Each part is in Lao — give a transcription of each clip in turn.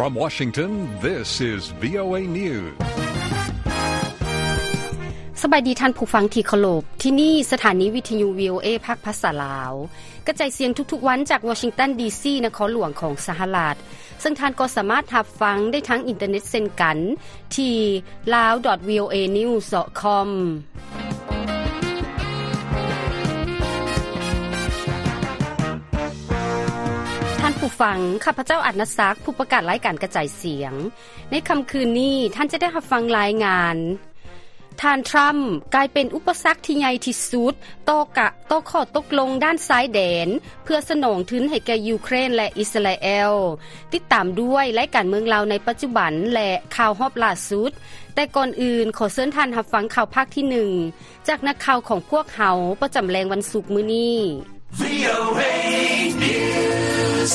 From Washington, this is VOA News. ສະບາຍດີທ່ານຜູ້ຟັງທີ່ເຄົາລົບ, ທີ່ນີ້ສະຖານີວິທະຍຸ VOA ພາກພາສາລາວ ກະຈາຍສຽງທຸກໆວັນຈາກວໍຊິງຕັນ ດີຊີ ນະຄອນຫຼວງຂອງສະຫະລັດ, ເຊິ່ງທ່ານກໍສາມາດຮັບຟັງໄດ້ທາງອິນເຕີເນັດເຊັ່ນກັນ ທີ່ lao.voanews.com. ທ່ານຜູ້ຟັງ, ຂ້າພະເຈົ້າ ອານາສັກ, ຜູ້ປະກາດລາຍການກະຈາຍສຽງ. ໃນຄ່ຳຄືນນີ້, ທ່ານຈະໄດ້ຮັບຟັງລາຍງານ ທ່ານທຣຳກາຍເປັນອຸປະສັກທີ່ໃຫຍ່ທີ່ສຸດຕໍ່ກະ ຕໍ່ຂໍ້ຕົກລົງດ້ານຊາຍແດນ ເພື່ອສະໜອງທຶນໃຫ້ແກ່ຢູເຄຣນ ແລະ ອິດສະຣາແອລ. ຕິດຕາມດ້ວຍລາຍການເມືອງລາວໃນປັດຈຸບັນ ແລະ ຂ່າວຮອບລ່າສຸດ. ແຕ່ກ່ອນອື່ນ, ຂໍເຊີນທ່ານຮັບຟັງຂ່າວພາກທີໜຶ່ງ ຈາກນັກຂ່າວຂອງພວກເຮົາປະຈຳແລງວັນສຸກມື້ນີ້. VOA News.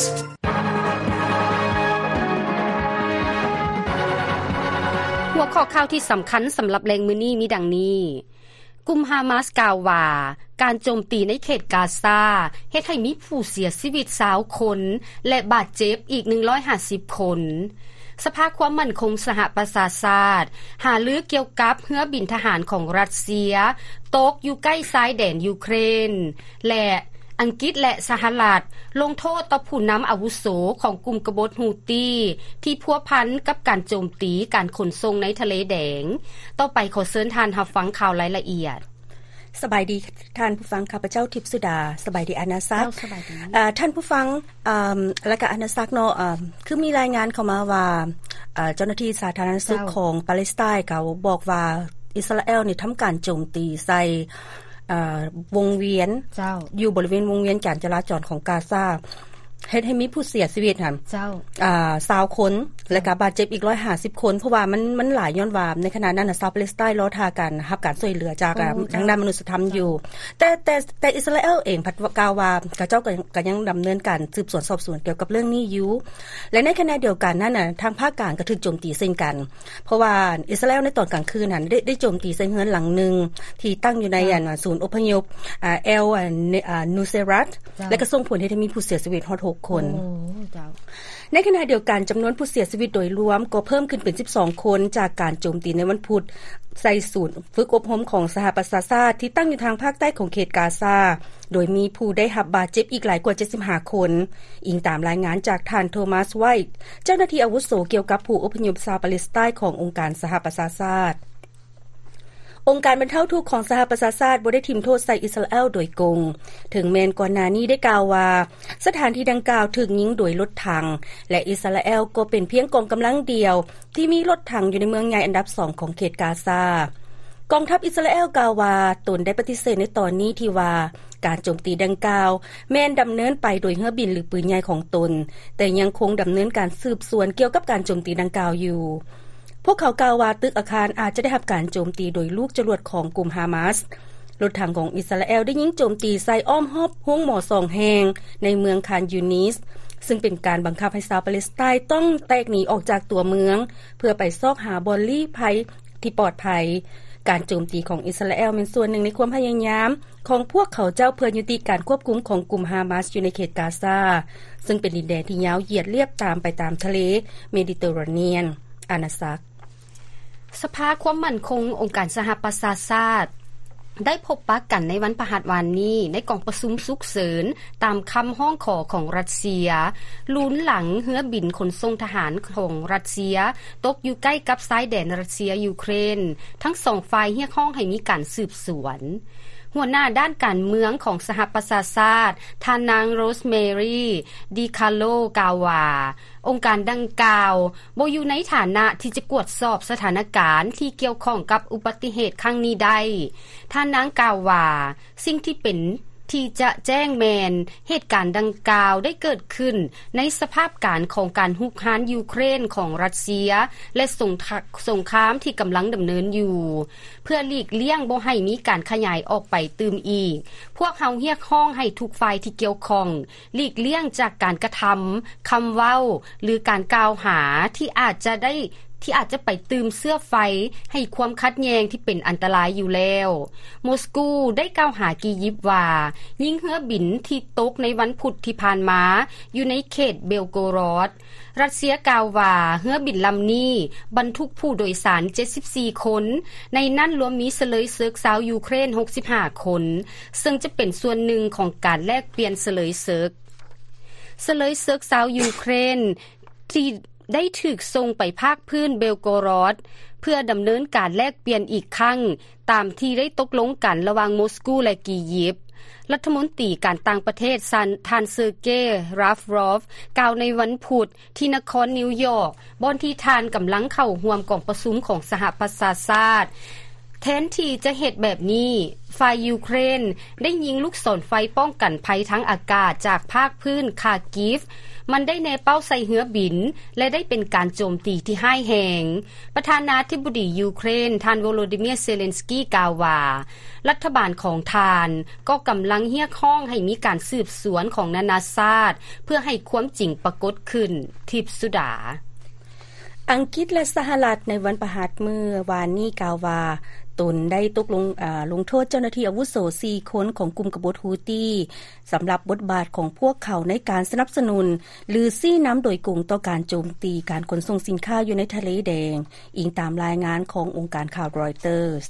ຫົວຂໍ້ຂ່າວທີ່ສຳຄັນສຳລັບແລງມື້ນີ້ມີດັ່ງນີ້. ກຸ່ມຮາມາສກ່າວວ່າ ການໂຈມຕີໃນເຂດກາຊາເຮັດໃຫ້ມີຜູ້ເສຍຊີວິດຊາວຄົນ ແລະ ບາດເຈັບອີກໜຶ່ງຮ້ອຍຫ້າສິບຄົນ. ສະພາຄວາມໝັ້ນຄົງສະຫະປະຊາຊາດຫາລືກ່ຽວກັບເຮືອບິນທະຫານຂອງຣັດເຊຍຕົກຢູ່ໃກ້ຊາຍແດນຢູເຄຣນ ແລະ ອັງກິດ ແລະ ສະຫະລັດລົງໂທດຕໍ່ຜູ້ນຳອາວຸໂສຂອງກຸ່ມກະບົດຮູ້ຕີ ທີ່ພົວພັນກັບການໂຈມຕີການຂົນສົ່ງໃນທະເລແດງ. ຕໍ່ໄປຂໍເຊີນທ່ານຮັບຟັງຂ່າວລາຍລະອຽດ. ສະບາຍດີທ່ານຜູ້ຟັງ, ຂ້າພະເຈົ້າ ທິບສຸດາ. ສະບາຍດີ ອານາສັກ. ເຈົ້າ, ສະບາຍດີ. ເອີ ທ່ານຜູ້ຟັງ, ເອີ ລະກະ ອານາສັກເນາະ, ເອີ ຄືມີລາຍງານເຂົ້າມາວ່າ ເອີ ເຈົ້າໜ້າທີ່ສາທາລະນະສຸກ ເຈົ້າ ຂອງປາເລສໄຕນ໌ ກໍບອກວ່າອິດສະຣາແອລນີ້ທຳການໂຈມຕີໃສ່ ເອີ ວົງວຽນ ເຈົ້າ ຢູ່ບໍລິເວນວົງວຽນການຈະລາຈອນຂອງກາຊາ ເຮັດໃຫ້ມີຜູ້ເສຍຊີວິດຫັ້ນ ເຈົ້າ ອ່າ ຊາວຄົນ ເຈົ້າ ແລະກະບາດເຈັບອີກໜຶ່ງຮ້ອຍຫ້າສິບຄົນ ເພາະວ່າມັນ ມັນຫຼາຍ ຍ້ອນວ່າໃນຂະນະນັ້ນນະ ຊາວປາເລສໄຕນ໌ລໍຖ້າການຮັບການຊ່ວຍເຫຼືອຈາກ ໂອ້ ທາງດ້ານມະນຸດສະທຳຢູ່ ເຈົ້າ ແຕ່ ແຕ່ ແຕ່ອິດສະຣາແອລເອງພັດກ່າວວ່າ ເຂົາເຈົ້າກໍ ກໍຍັງດຳເນີນການສືບສວນສອບສວນກ່ຽວກັບເລື່ອງນີ້ຢູ່ ແລະໃນຂະນະດຽວກັນນັ້ນນະ ທາງພາກກາງກໍຖືກໂຈມຕີເຊັ່ນກັນ ເພາະວ່າອິດສະຣາແອລໃນຕອນກາງຄືນຫັ້ນ ໄດ້ ໄດ້ໂຈມຕີໃສ່ເຮືອນຫຼັງໜຶ່ງ ທີ່ຕັ້ງຢູ່ໃນ ເຈົ້າ ອັນ ສູນອົບພະຍົບ ອາ ແອລ ອາ ນູເຊຣັດ ເຈົ້າ ແລະກໍສົ່ງຜົນເຮັດໃຫ້ມີຜູ້ເສຍຊີວິດຮອດຫົກຄົນ. ໂອ້ ເຈົ້າ. ໃນຂະນະດຽວກັນ, ຈຳນວນຜູ້ເສຍຊີວິດໂດຍລວມກໍເພີ່ມຂຶ້ນເປັນສິບສອງຄົນ ຈາກການໂຈມຕີໃນວັນພຸດໃສ່ສູນຝຶກອົບຮົມຂອງສະຫະປະຊາຊາດ ທີ່ຕັ້ງຢູ່ທາງພາກໃຕ້ຂອງເຂດກາຊາ ໂດຍມີຜູ້ໄດ້ຮັບບາດເຈັບອີກຫຼາຍກວ່າເຈັດສິບຫ້າຄົນ, ອີງຕາມລາຍງານຈາກທ່ານ ໂທມັສ ໄວ ເຈົ້າໜ້າທີ່ອາວຸໂສກ່ຽວກັບຜູ້ອົບພະຍົບຊາວປາເລສໄຕນ໌ຂອງອົງການສະຫະປະຊາຊາດ. ອົງການບັນເທົາທຸກຂອງສະຫະປະຊາຊາດບໍ່ໄດ້ຖິ້ມໂທດໃສ່ອິດສະຣາແອລໂດຍກົງ, ເຖິງແມ່ນກ່ອນໜ້ານີ້ໄດ້ກ່າວວ່າ ສະຖານທີ່ດັ່ງກ່າວຖືກຍິງໂດຍລົດຖັງ ແລະ ອິດສະຣາແອລກໍເປັນພຽງກອງກຳລັງດຽວທີ່ມີລົດຖັງຢູ່ໃນເມືອງໃຫຍ່ອັນດັບສອງຂອງເຂດກາຊາ. ກອງທັບອິດສະຣາແອລກ່າວວ່າ ຕົນໄດ້ປະຕິເສດໃນຕອນນີ້ທີ່ວ່າ ການໂຈມຕີດັ່ງກ່າວແມ່ນດຳເນີນໄປໂດຍເຮືອບິນ ຫຼື ປືນໃຫຍ່ຂອງຕົນ, ແຕ່ຍັງຄົງດຳເນີນການສືບສວນກ່ຽວກັບການໂຈມຕີດັ່ງກ່າວຢູ່. ພວກເຂົາກ່າວວ່າ ຕຶກອາຄານອາດຈະໄດ້ຮັບການໂຈມຕີໂດຍລູກຈະຫຼວດຂອງກຸ່ມຮາມາສ. ລົດຖັງຂອງອິດສະຣາແອລໄດ້ຍິງໂຈມຕີໃສ່ອ້ອມຮອບໂຮງໝໍສອງແຫ່ງໃນເມືອງຄານຢູນິດ, ຊຶ່ງເປັນການບັງຄັບໃຫ້ຊາວປາເລສໄຕນ໌ຕ້ອງແຕກໜີອອກຈາກຕົວເມືອງ ເພື່ອໄປຊອກຫາບ່ອນລີ້ໄພທີ່ປອດໄພ. ການໂຈມຕີຂອງອິດສະຣາແອລແມ່ນສ່ວນໜຶ່ງໃນຄວາມພະຍາຍາມຂອງພວກເຂົາເຈົ້າເພື່ອຍຸຕິການຄວບຄຸມຂອງກຸ່ມຮາມາສຢູ່ໃນເຂດກາຊາ, ຊຶ່ງເປັນດິນແດນທີ່ຍາວຢຽດລຽບຕາມໄປຕາມທະເລເມດິເຕີຣາເນຍນ. ອານາສັກ. ສະພາຄວາມໝັ້ນຄົງອົງການສະຫະປະຊາຊາດ ໄດ້ພົບປະກັນໃນວັນພະຫັດວານນີ້ ໃນກອງປະຊຸມສຸກເສີນ ຕາມຄຳຮ້ອງຂໍຂອງຣັດເຊຍ ລຸນຫຼັງເຮືອບິນຂົນສົ່ງທະຫານຂອງຣັດເຊຍຕົກຢູ່ໃກ້ກັບຊາຍແດນຣັດເຊຍ-ຢູເຄຣນ, ທັງສອງຝ່າຍຮຽກຮ້ອງໃຫ້ມີການສືບສວນ. ຫົວໜ້າດ້ານການເມືອງຂອງສະຫະປະຊາຊາດ, ທ່ານນາງ ໂຣສແມຣີ ດີຄາໂລ ກ່າວວ່າ ອົງການດັ່ງກ່າວບໍ່ຢູ່ໃນຖານະທີ່ຈະກວດສອບສະຖານະການທີ່ກ່ຽວຂ້ອງກັບອຸບັດຕິເຫດຄັ້ງນີ້ໄດ້. ທ່ານນາງກ່າວວ່າ ສິ່ງທີ່ເປັນທີ່ຈະແຈ້ງແມ່ນ ເຫດການດັ່ງກ່າວໄດ້ເກີດຂຶ້ນໃນສະພາບການຂອງການຮຸກຮານຢູເຄຣນຂອງຣັດເຊຍ ແລະ ສົງຄະ- ສົງຄາມທີ່ກຳລັງດຳເນີນຢູ່. ເພື່ອຫຼີກລ່ຽງບໍ່ໃຫ້ມີການຂະຫຍາຍອອກໄປຕື່ມອີກ, ພວກເຮົາຮຽກຮ້ອງໃຫ້ທຸກຝ່າຍທີ່ກ່ຽວຂ້ອງ ຫຼີກລ່ຽງຈາກການກະທຳ, ຄຳເວົ້າ ຫຼື ການກ່າວຫາທີ່ອາດຈະໄດ້ ທີ່ອາດຈະໄປຕື່ມເຊື້ອໄຟໃຫ້ຄວາມຂັດແຍ່ງທີ່ເປັນອັນຕະລາຍຢູ່ແລ້ວ. ໂມສກູໄດ້ກ່າວຫາກີຢິບວ່າ ຍິງເຮືອບິນທີ່ຕົກໃນວັນພຸດທີ່ຜ່ານມາຢູ່ໃນເຂດເບລໂກຣອດ. ຣັດເຊຍກ່າວວ່າ ເຮືອບິນລຳນີ້ບັນທຸກຜູ້ໂດຍສານເຈັດສິບສີ່ຄົນ, ໃນນັ້ນລວມມີສະເລີຍເສິກຊາວຢູເຄຣນຫົກສິບຫ້າຄົນ, ເຊິ່ງຈະເປັນສ່ວນໜຶ່ງຂອງການແລກປ່ຽນສະເລີຍເສິກ. ສະເລີຍເສິກຊາວຢູເຄຣນທີ່ໄດ້ຖືກສົ່ງໄປພາກພື້ນເບລໂກຣອດ ເພື່ອດຳເນີນການແລກປ່ຽນອີກຄັ້ງ ຕາມທີ່ໄດ້ຕົກລົງກັນລະຫວ່າງໂມສກູ ແລະ ກີຢິບ. ລັດຖະມົນຕີການຕ່າງປະເທດ ທ່ານ ເຊີເກ ຣາຟຣອຟ ກ່າວໃນວັນພຸດ ທີ່ນະຄອນນິວຢອກ ບ່ອນທີ່ທ່ານກຳລັງເຂົ້າຮ່ວມກອງປະຊຸມຂອງສະຫະປະຊາຊາດ. ແທນທີ່ຈະເຮັດແບບນີ້, ຝ່າຍຢູເຄຣນໄດ້ຍິງລູກສອນໄຟປ້ອງກັນໄພທາງອາກາດຈາກພາກພື້ນຄາກິຟ, ມັນໄດ້ແນເປົ້າໃສ່ເຮືອບິນ ແລະ ໄດ້ເປັນການໂຈມຕີທີ່ຮ້າຍແຮງ. ປະທານາທິບໍດີຢູເຄຣນ ທ່ານ ໂວໂລດີເມຍ ເຊເລັນສກີ ກ່າວວ່າ ລັດຖະບານຂອງທ່ານກໍກຳລັງຮຽກຮ້ອງໃຫ້ມີການສືບສວນຂອງນານາຊາດ ເພື່ອໃຫ້ຄວາມຈິງປາກົດຂຶ້ນ. ທິບສຸດາ. ອັງກິດ ແລະ ສະຫະລັດໃນວັນພະຫັດມື້ວານນີ້ກ່າວວ່າ ຕົນໄດ້ຕົກລົງ ອາ ລົງໂທດເຈົ້າໜ້າທີ່ອາວຸໂສສີ່ຄົນຂອງກຸ່ມກະບົດຮູ້ຕີ ສຳລັບບົດບາດຂອງພວກເຂົາໃນການສະໜັບສະໜູນ ຫຼື ຊີ້ນຳໂດຍກົງຕໍ່ການໂຈມຕີການຂົນສົ່ງສິນຄ້າຢູ່ໃນທະເລແດງ, ອີງຕາມລາຍງານຂອງອົງການຂ່າວຣອຍເຕີສ.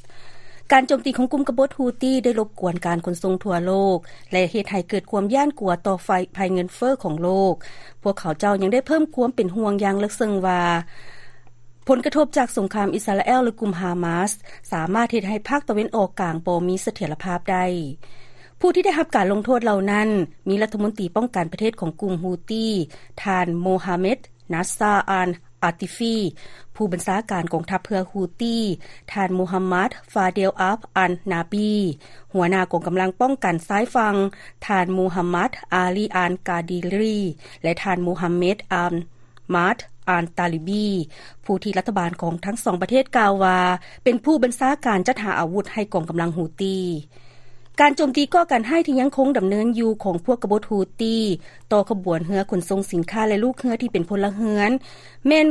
ການໂຈມຕີຂອງກຸ່ມກະບົດຮູ້ຕີໄດ້ລົບກວນການຂົນສົ່ງທົ່ວໂລກ ແລະ ເຮັດໃຫ້ເກີດຄວາມຢ້ານກົວຕໍ່ໄພ ໄພເງິນເຟີ້ຂອງໂລກ. ພວກເຂົາເຈົ້າຍັງໄດ້ເພີ່ມຄວາມເປັນຫ່ວງຢ່າງເລິກເຊິ່ງວ່າ ຜົນກະທົບຈາກສົງຄາມອິດສະຣາແອລ ແລະ ກຸ່ມຮາມາສ ສາມາດເຮັດໃຫ້ພາກຕາເວັນອອກກາງບໍ່ມີສະຖຽນລະພາບໄດ້. ຜູ້ທີ່ໄດ້ຮັບການລົງໂທດເຫຼົ່ານັ້ນ ມີລັດຖະມົນຕີປ້ອງກັນປະເທດຂອງກຸ່ມຮູ້ຕີ ທ່ານ ໂມຮາເມັດ ນາຊາ ອານ ອາຕິຟີ, ຜູ້ບັນຊາການກອງທັບເຮືອຮູ້ຕີ ທ່ານ ໂມຮາມັດ ຟາເດລ ອາບ ອານ ນາບີ, ຫົວໜ້າກອງກຳລັງປ້ອງກັນຊາຍຝັ່ງ ທ່ານ ໂມຮາມັດ ອາລີ ອານ ກາດີຣີ ແລະ ທ່ານ ໂມຮາເມັດ ອານ ມາດ ອານ ຕາລີບີ, ຜູ້ທີ່ລັດຖະບານຂອງທັງສອງປະເທດກ່າວວ່າ ເປັນຜູ້ບັນຊາການຈັດຫາອາວຸດໃຫ້ກອງກຳລັງຮູ້ຕີ. ການໂຈມຕີກໍ່ການຮ້າຍທີ່ຍັງຄົງດຳເນີນຢູ່ຂອງພວກກະບົດຮູ້ຕີ ຕໍ່ຂະບວນເຮືອຂົນສົ່ງສິນຄ້າ ແລະ ລູກເຮືອທີ່ເປັນພົນລະເຮືອນ ແມ່ນ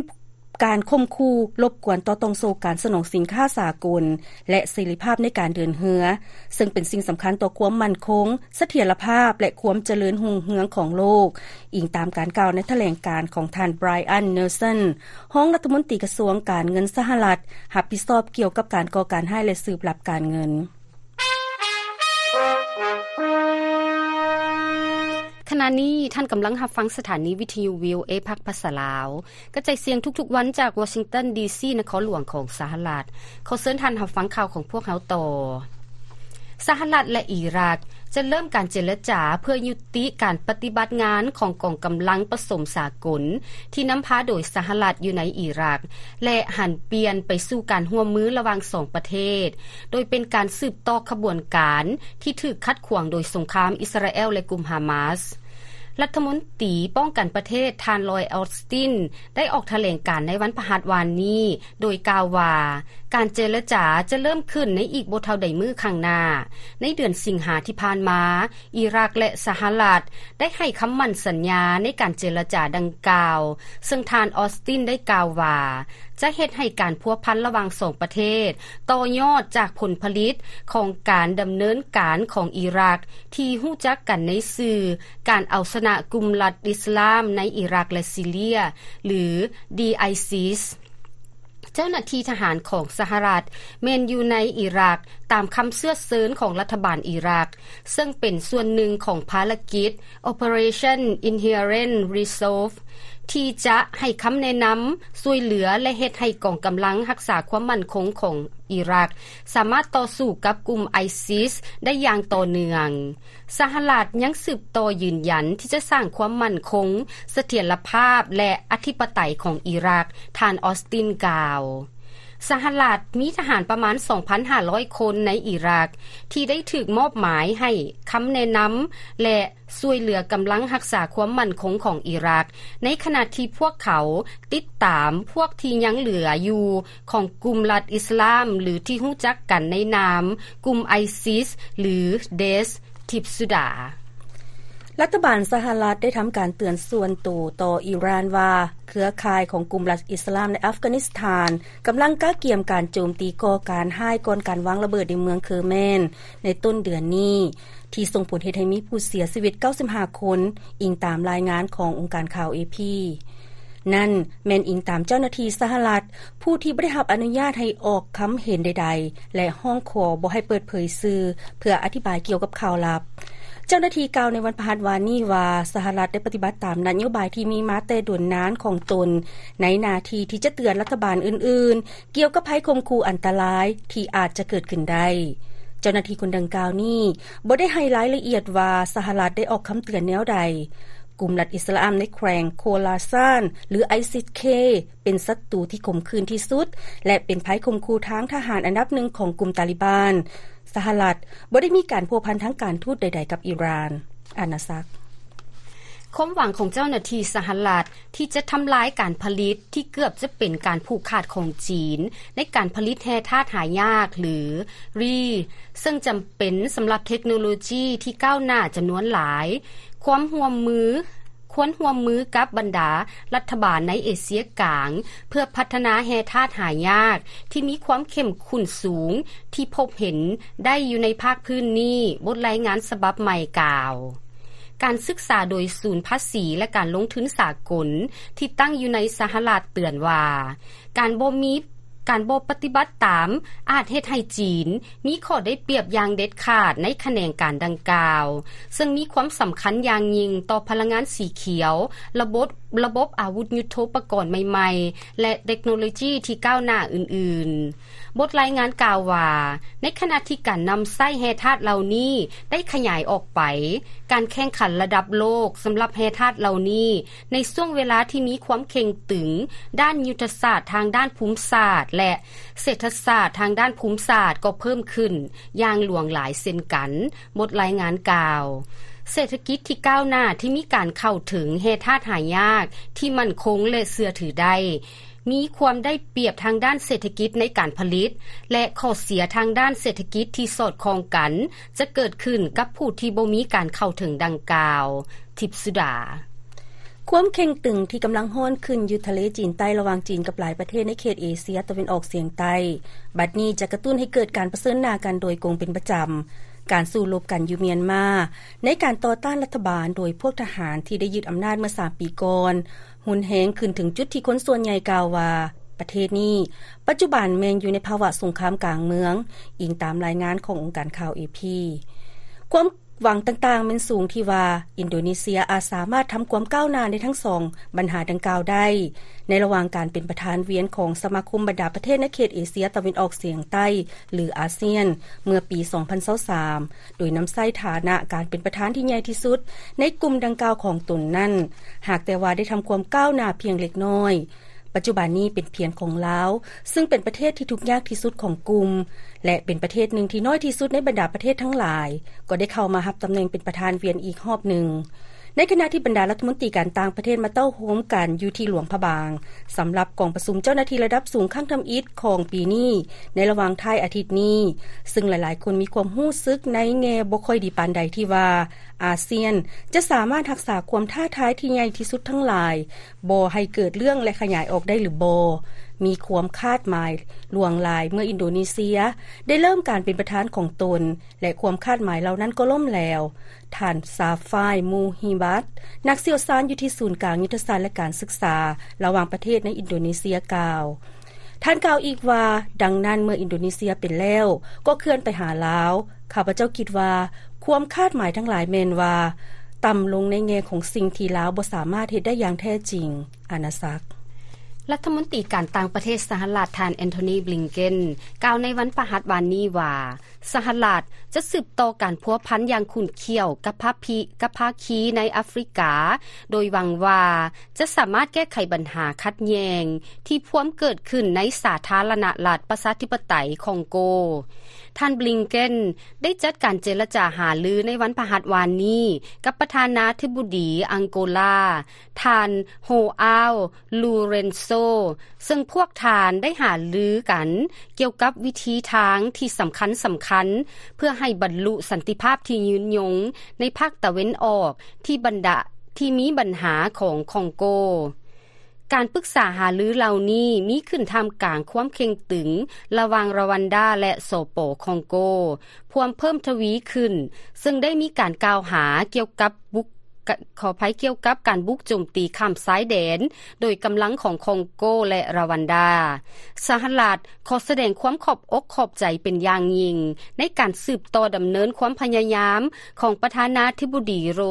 ການຂົ່ມຂູ່ລົບກວນຕໍ່ຕ່ອງໂສ້ການສະໜອງສິນຄ້າສາກົນ ແລະ ເສລີພາບໃນການເດີນເຮືອ, ເຊິ່ງເປັນສິ່ງສຳຄັນຕໍ່ຄວາມໝັ້ນຄົງ, ສະຖຽນລະພາບ ແລະ ຄວາມຈະເລີນຮຸ່ງເຮືອງຂອງໂລກ, ອີງຕາມການກ່າວໃນຖະແຫຼງການຂອງທ່ານ Brian Nelson, ຮອງລັດຖະມົນຕີກະຊວງການເງິນສະຫະລັດ, ຮັບຜິດຊອບກ່ຽວກັບການກໍ່ການຮ້າຍ ແລະ ສືບລັບການເງິນ. ຂະນະນີ້ທ່ານກຳລັງຮັບຟັງສະຖານີວິທະຍຸ ວີໂອເອ ພາກພາສາລາວ ກະຈາຍສຽງທຸກໆວັນຈາກວໍຊິງຕັນ ດີຊີ ນະຄອນຫຼວງຂອງສະຫະລັດ. ຂໍເຊີນທ່ານຮັບຟັງຂ່າວຂອງພວກເຮົາຕໍ່. ສະຫະລັດ ແລະ ອີຣັກ ຈະເລີ່ມການເຈລະຈາເພື່ອຍຸຕິການປະຕິບັດງານຂອງກອງກຳລັງປະສົມສາກົນ ທີ່ນຳພາໂດຍສະຫະລັດຢູ່ໃນອີຣັກ ແລະ ຫັນປ່ຽນໄປສູ່ການຮ່ວມມືລະຫວ່າງສອງປະເທດ, ໂດຍເປັນການສືບຕໍ່ຂະບວນການທີ່ຖືກຂັດຂວາງໂດຍສົງຄາມອິດສະຣາແອລ ແລະ ກຸ່ມຮາມາສ. ລັດຖະມົນຕີປ້ອງກັນປະເທດ ທ່ານ ລອຍ ອອສຕິນ ໄດ້ອອກຖະແຫຼງການໃນວັນພະຫັດວານນີ້ ໂດຍກ່າວວ່າ ການເຈລະຈາຈະເລີ່ມຂຶ້ນໃນອີກບໍ່ເທົ່າໃດມື້ຂ້າງໜ້າ. ໃນເດືອນສິງຫາທີ່ຜ່ານມາ, ອີຣັກ ແລະ ສະຫະລັດ ໄດ້ໃຫ້ຄຳໝັ້ນສັນຍາໃນການເຈລະຈາດັ່ງກ່າວ, ເຊິ່ງທ່ານ ອອສຕິນ ໄດ້ກ່າວວ່າ ຈະເຮັດໃຫ້ການພົວພັນລະຫວ່າງສອງປະເທດຕໍ່ຍອດຈາກຜົນຜະລິດຂອງການດຳເນີນການຂອງອີຣັກ ທີ່ຮູ້ຈັກກັນໃນຊື່ ການເອົາຊະນະກຸ່ມລັດອິດສະລາມໃນອີຣັກ ແລະ ຊີເຣຍ ຫຼື ໄອຊິສ. ເຈົ້າໜ້າທີ່ທະຫານຂອງສະຫະລັດແມ່ນຢູ່ໃນອີຣັກ ຕາມຄຳເຊື້ອເຊີນຂອງລັດຖະບານອີຣັກ, ເຊິ່ງເປັນສ່ວນໜຶ່ງຂອງພາລະກິດ Operation Inherent Resolve ທີ່ຈະໃຫ້ຄຳແນະນຳ, ຊ່ວຍເຫຼືອ ແລະ ເຮັດໃຫ້ກອງກຳລັງຮັກສາຄວາມໝັ້ນຄົງຂອງອີຣັກ ສາມາດຕໍ່ສູ້ກັບກຸ່ມໄອຊິສໄດ້ຢ່າງຕໍ່ເນື່ອງ. ສະຫະລັດຍັງສືບຕໍ່ຢືນຢັນທີ່ຈະສ້າງຄວາມໝັ້ນຄົງ, ສະຖຽນລະພາບ ແລະ ອະທິປະໄຕຂອງອີຣັກ, ທ່ານ ອອສຕິນ ກ່າວ. ສະຫະລັດມີທະຫານປະມານສອງພັນຫ້າຮ້ອຍຄົນໃນອີຣັກ ທີ່ໄດ້ຖືກມອບໝາຍໃຫ້ຄຳແນະນຳ ແລະ ຊ່ວຍເຫຼືອກຳລັງຮັກສາຄວາມໝັ້ນຄົງຂອງອີຣັກ, ໃນຂະນະທີ່ພວກເຂົາຕິດຕາມພວກທີ່ຍັງເຫຼືອຢູ່ຂອງກຸ່ມລັດອິດສະລາມ ຫຼື ທີ່ຮູ້ຈັກກັນໃນນາມກຸ່ມໄອຊິສ ຫຼື ເດສ. ທິບສຸດາ. ລັດຖະບານສະຫະລັດໄດ້ທຳການເຕືອນສ່ວນໂຕຕໍ່ອີຣານວ່າ ເຄືອຂ່າຍຂອງກຸ່ມລັດອິດສະລາມໃນອັຟການິສຖານ ກຳລັງກະກຽມການໂຈມຕີກໍ່ການຮ້າຍກ່ອນການວາງລະເບີດໃນເມືອງເຄີແມນໃນຕົ້ນເດືອນນີ້ ທີ່ສົ່ງຜົນເຮັດໃຫ້ມີຜູ້ເສຍຊີວິດເກົ້າສິບຫ້າຄົນ, ອີງຕາມລາຍງານຂອງອົງການຂ່າວເອພີ. ນັ້ນແມ່ນອີງຕາມເຈົ້າໜ້າທີ່ສະຫະລັດ ຜູ້ທີ່ບໍ່ໄດ້ຮັບອະນຸຍາດໃຫ້ອອກຄຳເຫັນໃດໆ ແລະ ຮ້ອງຂໍບໍ່ໃຫ້ເປີດເຜີຍຊື່ ເພື່ອອະທິບາຍກ່ຽວກັບຂ່າວລັບ. ເຈົ້າໜ້າທີ່ກ່າວໃນວັນພະຫັດວານນີ້ວ່າ ສະຫະລັດໄດ້ປະຕິບັດຕາມນະໂຍບາຍທີ່ມີມາແຕ່ດົນນານຂອງຕົນ ໃນໜ້າທີ່ທີ່ຈະເຕືອນລັດຖະບານອື່ນໆ ກ່ຽວກັບໄພຂົ່ມຂູ່ອັນຕະລາຍທີ່ອາດຈະເກີດຂຶ້ນໄດ້. ເຈົ້າໜ້າທີ່ຄົນດັ່ງກ່າວນີ້ບໍ່ໄດ້ໃຫ້ລາຍລະອຽດວ່າສະຫະລັດໄດ້ອອກຄຳເຕືອນແນວໃດ. ກຸ່ມລັດອິດສະລາມໃນແຂວງໂຄລາຊານ ຫຼື ໄອຊິສ-ເຄ ເປັນສັດຕູທີ່ຂົມຂື່ນທີ່ສຸດ ແລະ ເປັນໄພຂົ່ມຂູ່ທາງທະຫານອັນດັບໜຶ່ງຂອງກຸ່ມຕາລິບານ. ສະຫະລັດບໍ່ໄດ້ມີການພົວພັນທາງການທູດໃດໆກັບອີຣານ. ອານາສັກ. ຄວາມຫວັງຂອງເຈົ້າໜ້າທີ່ສະຫະລັດທີ່ຈະທຳລາຍການຜະລິດທີ່ເກືອບຈະເປັນການຜູກຂາດຂອງຈີນ ໃນການຜະລິດແຮ່ທາດຫາຍາກ ຫຼື Rare ເຊິ່ງຈຳເປັນສຳລັບເທັກໂນໂລຈີທີ່ກ້າວໜ້າຈຳນວນຫຼາຍ, ຄວາມຮ່ວມມື, ຄວນຮ່ວມມືກັບບັນດາລັດຖະບານໃນເອເຊຍກາງ ເພື່ອພັດທະນາແຮ່ທາດຫາຍາກທີ່ມີຄວາມເຂັ້ມຂຸ້ນສູງທີ່ພົບເຫັນໄດ້ຢູ່ໃນພາກພື້ນນີ້, ບົດລາຍງານສະບັບໃໝ່ກ່າວ. ການສຶກສາໂດຍສູນພາສີ ແລະ ການລົງທຶນສາກົນທີ່ຕັ້ງຢູ່ໃນສະຫະລັດເຕືອນວ່າ ການບໍ່ມີ, ການບໍ່ປະຕິບັດຕາມອາດເຮັດໃຫ້ຈີນມີຂໍ້ໄດ້ປຽບຢ່າງເດັດຂາດໃນຂະແໜງການດັ່ງກ່າວ, ເຊິ່ງມີຄວາມສຳຄັນຢ່າງຍິ່ງຕໍ່ພະລັງງານສີຂຽວ, ລະບົບ, ລະບົບອາວຸດຍຸດໂທປະກອນໃໝ່ໆ ແລະ ເຕັກໂນໂລຈີທີ່ກ້າວໜ້າອື່ນໆ. ບົດລາຍງານກ່າວວ່າ ໃນຂະນະທີ່ການນຳໃຊ້ແຮ່ທາດເຫຼົ່ານີ້ໄດ້ຂະຫຍາຍອອກໄປ, ການແຂ່ງຂັນລະດັບໂລກສຳລັບແຮ່ທາດເຫຼົ່ານີ້ ໃນຊ່ວງເວລາທີ່ມີຄວາມເຄັ່ງຕຶງດ້ານຍຸດທະສາດທາງດ້ານພູມສາດ ແລະ ເສດຖະສາດທາງດ້ານພູມສາດກໍເພີ່ມຂຶ້ນຢ່າງຫຼວງຫຼາຍເຊັ່ນກັນ, ບົດລາຍງານກ່າວ. ເສດຖະກິດທີ່ກ້າວໜ້າທີ່ມີການເຂົ້າເຖິງແຮ່ທາດຫາຍາກທີ່ໝັ້ນຄົງ ແລະ ເຊື່ອຖືໄດ້ ມີຄວາມໄດ້ປຽບທາງດ້ານເສດຖະກິດໃນການຜະລິດ ແລະ ຂໍ້ເສຍທາງດ້ານເສດຖະກິດທີ່ສອດຄ່ອງກັນ ຈະເກີດຂຶ້ນກັບຜູ້ທີ່ບໍ່ມີການເຂົ້າເຖິງດັ່ງກ່າວ. ທິບສຸດາ. ຄວາມເຄັ່ງຕຶງທີ່ກຳລັງຮ້ອນຂຶ້ນຢູ່ທະເລຈີນໃຕ້ ລະຫວ່າງຈີນກັບຫຼາຍປະເທດໃນເຂດເອເຊຍຕາເວັນອອກສຽງໃຕ້ ບັດນີ້ຈະກະຕຸ້ນໃຫ້ເກີດການປະເຊີນໜ້າກັນໂດຍກົງເປັນປະຈຳ. ການສູ້ລົບກັນຢູ່ມຽນມາ ໃນການຕໍ່ຕ້ານລັດຖະບານໂດຍພວກທະຫານທີ່ໄດ້ຍຶດອຳນາດເມື່ອສາມປີກ່ອນ ຮຸນແຮງຂຶ້ນເຖິງຈຸດທີ່ຄົນສ່ວນໃຫຍ່ກ່າວວ່າ ປະເທດນີ້ປັດຈຸບັນແມ່ນຢູ່ໃນພາວະສົງຄາມກາງເມືອງ, ອີງຕາມລາຍງານຂອງອົງການຂ່າວເອພີ. ຄວາມຫວັງຕ່າງໆແມ່ນສູງທີ່ວ່າ ອິນໂດເນເຊຍອາດສາມາດທຳຄວາມກ້າວໜ້າໃນທັງສອງບັນຫາດັ່ງກ່າວໄດ້ ໃນລະຫວ່າງການເປັນປະທານວຽນຂອງສະມາຄົມບັນດາປະເທດໃນເຂດເອເຊຍຕາເວັນອອກສຽງໃຕ້ ຫຼື ອາຊຽນ ເມື່ອປີສອງພັນຊາວສາມ ໂດຍນຳໃຊ້ຖານະການເປັນປະທານທີ່ໃຫຍ່ທີ່ສຸດໃນກຸ່ມດັ່ງກ່າວຂອງຕົນນັ້ນ, ຫາກແຕ່ວ່າໄດ້ທຳຄວາມກ້າວໜ້າພຽງເລັກນ້ອຍ. ປັດຈຸບັນນີ້ເປັນພຽງຂອງລາວ, ຊຶ່ງເປັນປະເທດທີ່ທຸກຍາກທີ່ສຸດຂອງກຸ່ມ ແລະ ເປັນປະເທດໜຶ່ງທີ່ນ້ອຍທີ່ສຸດໃນບັນດາປະເທດທັງຫຼາຍ, ກໍໄດ້ເຂົ້າມາຮັບຕຳແໜ່ງເປັນປະທານວຽນອີກຮອບໜຶ່ງ. ໃນຂະນະທີ່ບັນດາລັດຖະມົນຕີການຕ່າງປະເທດມາເຕົ້າໂຮມກັນຢູ່ທີ່ຫຼວງພະບາງ ສຳລັບກອງປະຊຸມເຈົ້າໜ້າທີ່ລະດັບສູງຄັ້ງທຳອິດຂອງປີນີ້ ໃນລະຫວ່າງທ້າຍອາທິດນີ້, ຊຶ່ງຫຼາຍໆຄົນມີຄວາມຮູ້ສຶກໃນແງ່ບໍ່ຄ່ອຍດີປານໃດທີ່ວ່າ ອາຊຽນຈະສາມາດຮັກສາຄວາມທ້າທາຍທີ່ໃຫຍ່ທີ່ສຸດທັງຫຼາຍ ບໍ່ໃຫ້ເກີດເລື່ອງ ແລະ ຂະຫຍາຍອອກໄດ້ຫຼືບໍ່, ມີຄວາມຄາດໝາຍຫຼວງຫຼາຍເມື່ອອິນໂດເນເຊຍໄດ້ເລີ່ມການເປັນປະທານຂອງຕົນ ແລະ ຄວາມຄາດໝາຍເຫຼົ່ານັ້ນກໍລົ້ມແຫຼວ. ທ່ານ ຊາຟາຍ ມູຮີບັດ ນັກຊ່ຽວຊານຢູ່ທີ່ສູນກາງຍຸດທະສາດ ແລະ ການສຶກສາລະຫວ່າງປະເທດໃນອິນໂດເນເຊຍກ່າວ. ທ່ານກ່າວອີກວ່າ, ດັ່ງນັ້ນເມື່ອອິນໂດເນເຊຍເປັນແລ້ວ ກໍເຄື່ອນໄປຫາລາວ. ຂ້າພະເຈົ້າຄິດວ່າຄວາມຄາດໝາຍທັງຫຼາຍແມ່ນວ່າຕ່ຳລົງໃນແງ່ຂອງສິ່ງທີ່ລາວບໍ່ສາມາດເຮັດໄດ້ຢ່າງແທ້ຈິງ. ອານາສັກ. ລັດຖະມົນຕີການຕ່າງປະເທດສະຫະລັດ ທ່ານ ແອນໂທນີ ບລິງເກັນ ກ່າວໃນວັນພະຫັດວານນີ້ວ່າ ສະຫະລັດຈະສືບຕໍ່ການພົວພັນຢ່າງຂຸ້ນຂ້ຽວກັບພາຄີ ກັບພາຄີໃນອາຟຣິກາ, ໂດຍຫວັງວ່າຈະສາມາດແກ້ໄຂບັນຫາຂັດແຍ່ງທີ່ພວມເກີດຂຶ້ນໃນສາທາລະນະລັດປະຊາທິປະໄຕຄອງໂກ. ທ່ານ ບລິງເກັນ ໄດ້ຈັດການເຈລະຈາຫາລືໃນວັນພະຫັດວານນີ້ກັບປະທານາທິບໍດີອັງໂກລາ ທ່ານ ໂຮອາວ ລູເຣັນໂຊ ໂຕ ເຊິ່ງພວກທ່ານໄດ້ຫາລືກັນກ່ຽວກັບວິທີທາງທີ່ສຳຄັນສຳຄັນ ເພື່ອໃຫ້ບັນລຸສັນຕິພາບທີ່ຍືນຍົງໃນພາກຕາເວັນອອກທີ່ບັນດາ ທີ່ມີບັນຫາຂອງຄອງໂກ. ການປຶກສາຫາລືເຫຼົ່ານີ້ມີຂຶ້ນທ່າມກາງຄວາມເຄັ່ງຕຶງລະຫວ່າງຣາວັນດາ ແລະ ສປ ຄອງໂກ ພວມເພີ່ມທະວີຂຶ້ນ ເຊິ່ງໄດ້ມີການກ່າວຫາກ່ຽວກັບບຸກ ກະ ຂໍອະໄພ ກ່ຽວກັບການບຸກໂຈມຕີຂ້າມຊາຍແດນໂດຍກຳລັງຂອງຄອງໂກ ແລະ ຣາວັນດາ. ສະຫະລັດຂໍສະແດງຄວາມຂອບອົກຂອບໃຈເປັນຢ່າງຍິ່ງໃນການສືບຕໍ່ດຳເນີນຄວາມພະຍາຍາມຂອງປະທານາທິບໍດີໂລ